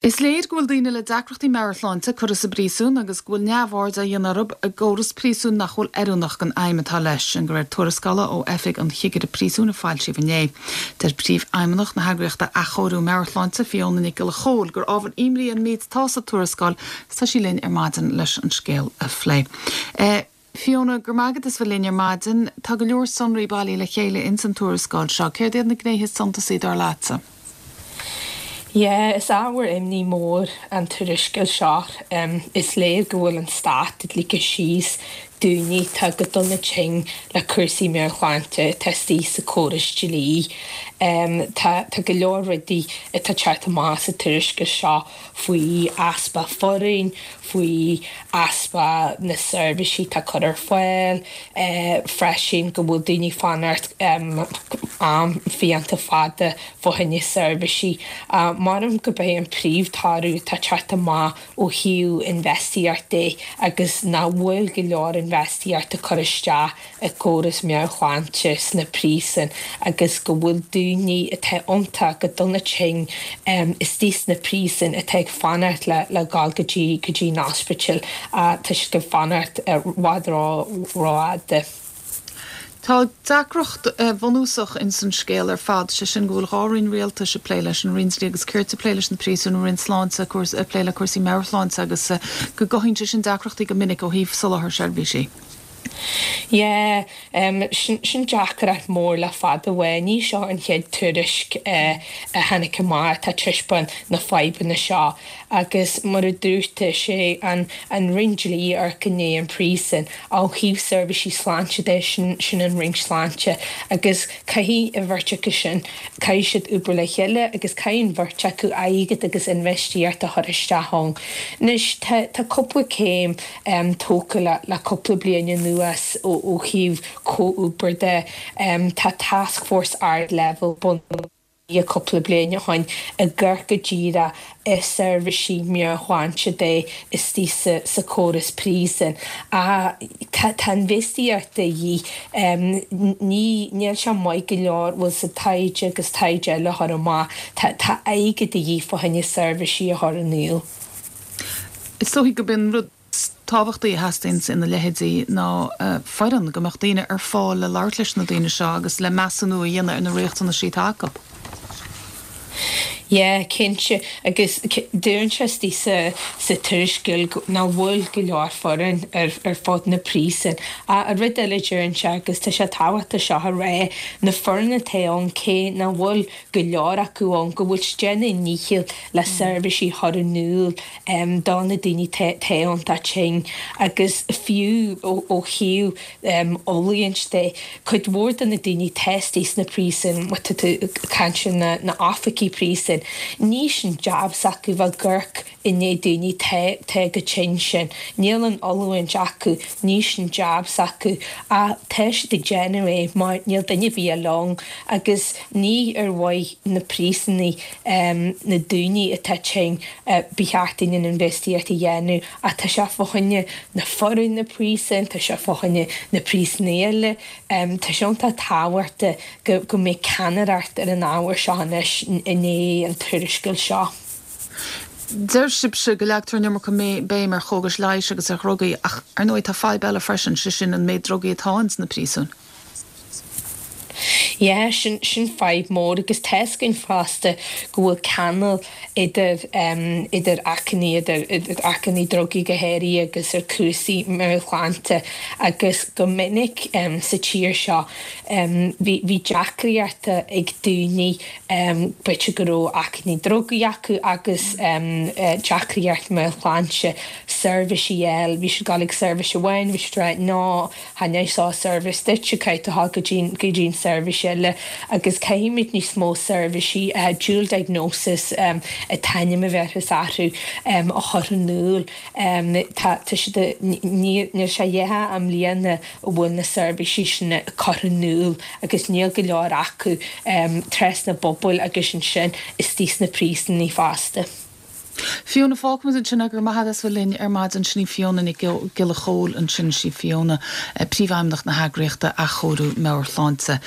Is léir go bhfuil daoine le deacrachtaí meabhairshláinte curtha sa bpríosún agus go bhfuil neamhaird á dhéanamh orthu i gcóras príosúin nach bhfuil oiriúnach don fheidhm atá leis, sin de réir tuarascála ó Oifig an Chigire Príosúin a foilsíodh inné. Deir Príomhfheidhmeannach na heagraíochta Athchóiriú Meabhairshláinte, Fiona Nic Giolla Chóill, gur ábhar imní an méid atá sa tuarascáil agus tá sí linn ar maidin leis an scéal a phlé. Fiona, Go raibh maith agat as bheith linn ar maidin. Tá go leor sonraí bailithe le chéile ins an tuarascáil seo. Céard iad na gnéithe is suntasaí dar leatsa? Yeah, is ábhar imní mór an tuarascáil seo. Is léir go bhfuil an stát ag ligean síos daoine atá go dona tinn le cúrsaí meabhairshláinte atá istigh sa chóras dlí. Tá tá go leor rudaí atá ag teacht amach sa tuarascáil seo faoi easpa foireann, faoi easpa na seirbhísí atá curtha ar fáil, freisin go bhfuil daoine ag fanacht am fiánta fada fá choinne seirbhísí. Measaim gurb é an príomhthoradh atá ag teacht amach ó thaobh infheistíocht de agus nach bhfuil go leor infheistíochta curtha isteach i gcóras meabhairshláinte sna príosúin agus go bhfuil daoine atá iontach go dona tinn istigh sna príosúin atá ag fanacht le le dhul go dtí go dtí an ospidéal tá siad ag fanacht i bhfad rófhada. Tá deacracht bhunúsach ins an scéal ar fad, sé sin go bhfuil 2 roinn rialtais ag plé leis, an Roinn Dlí agus Cirt ag plé leis na príosúin, an Roinn Sláinte ag plé le cúrsaí meabhairshláinte agus go gcothaíonn sé sin deacrachtaí go minic ó thaobh soláthar seirbhísí. Yeah, sin, sin deacracht mór le fada uaidh. Ní seo an chéad tuairisc a tháinig amach atá ag taispeáint na fadhbanna seo agus mar a dúirt tú, is é an, an Roinn Dlí a amharcann i ndiaidh an príosún. Ó thaobh seirbhísí sláinte de, sin, sin an Roinn Sláinte agus caithfidh an bheirt acu sin, caithfidh siad obair le chéile agus caithfidh an bheirt acu airgead agus infheistíocht a chur isteach ann. Anois, tá, tá cúpla céim tógtha le cúpla bliain anuas ó thaobh comhobair de. Tá tascfhórsa ardleibhéil bunaithe cúpla bliain ó shin ag amharc go díreach ar seirbhísí meabhairshláinte de istigh sa chóras príosúin. Ach tá infheistíocht de dhíth. Ní, níl sé maith go leor, bhfuil sa taighde agus taighde eile a chur amach. Tá airgead de dhíth fá choinne seirbhísí a chur in iúl. Is dóichí gurb é an rud is tábhachtaí a theastaíonns ina leithéidí ná foireann, go mbeadh daoine ar fáil le labhairt leis na daoine seo agus le measúnú a dhéanamh ar na riachtanaisí atá acu. Yeah, cinnte. Agus deireann sé istigh sa sa tuarascáil nach bhfuil go leor foireann ar ar fud na príosún. Ach an rud eile deireann sé, agus tá sé tábhachtach seo a rá, na foireann atá ann cé nach bhfuil go leor acu ann, go bhfuil siad ag déanamh a ndícheall le seirbhísí a chur in iúl do na daoine atá iontach tinn agus fiú ó thaobh oiliúint de, cuid mhór de na daoine atá istigh sna príosúin, má tá tú ag caint ar na oifigigh príosúin, ní sin jab s'acu bheith ag amharc i ndiaidh daoine atá chomh tinn sin. Níl an oiliúint acu, ní sin jab s'acu ach tá siad ag déanamh é mar níl duine ar bith eile ann agus ní ar mhaith na príosúnaigh, na daoine atá tinn, ba cheart dúinn an infheistíocht a dhéanamh ach tá sé fá choinne na foireann na príosúin, tá sé fá choinne na príosúnaigh eile. Tá sé iontach tábhachtach go mbeidh ceannaireacht ar an ábhar seo anois i ndiaidh an tuarascáil seo. Deir sibhse go leagtar an iomarca béim ar chógais leighis agus ar dhrugaí, ach ar ndóigh tá fadhb eile freisin, sé sin an méid drugaí atá ins na príosúin. Yeah, sin, sin fadhb mór agus tá 'fhios againn fosta go bhfuil ceangal idir, idir achainí, idir, idir achainí drugaí go háirithe agus ar cúrsaí meabhairshláinte agus go minic sa tír seo bhí, bhí deacraíochta ag daoine b'fhéidir go raibh achainí drugaí acu agus deacraíocht meabhairshláinte, seirbhísí a fháil, bhí siad ag dul ag seirbhís amháin, bhí siad ag rá no, chan é seo seirbhís duit, caithfidh tú dhul go dtí go dtí an seirbhís eile agus caithfimid níos mó seirbhísí dual diagnosis an t-ainm a bheirtheas orthu a chur in iúl. Tá tá siad níl sé dhétha i mbliana a bhfuil na seirbhísí sin curtha in iúl agus níl go leor acu trasna na bpobail agus ansin istigh sna príosúnaí fosta. Fiona, Fágfaimid ansin é, go raibh maith agat as bheith linn ar maidin. Sin í Fiona Nic Giolla Chóill ansin, sí Fiona, Príomhfheidhmeannach na heagraíochta Athchóiriú Meabhairshláinte.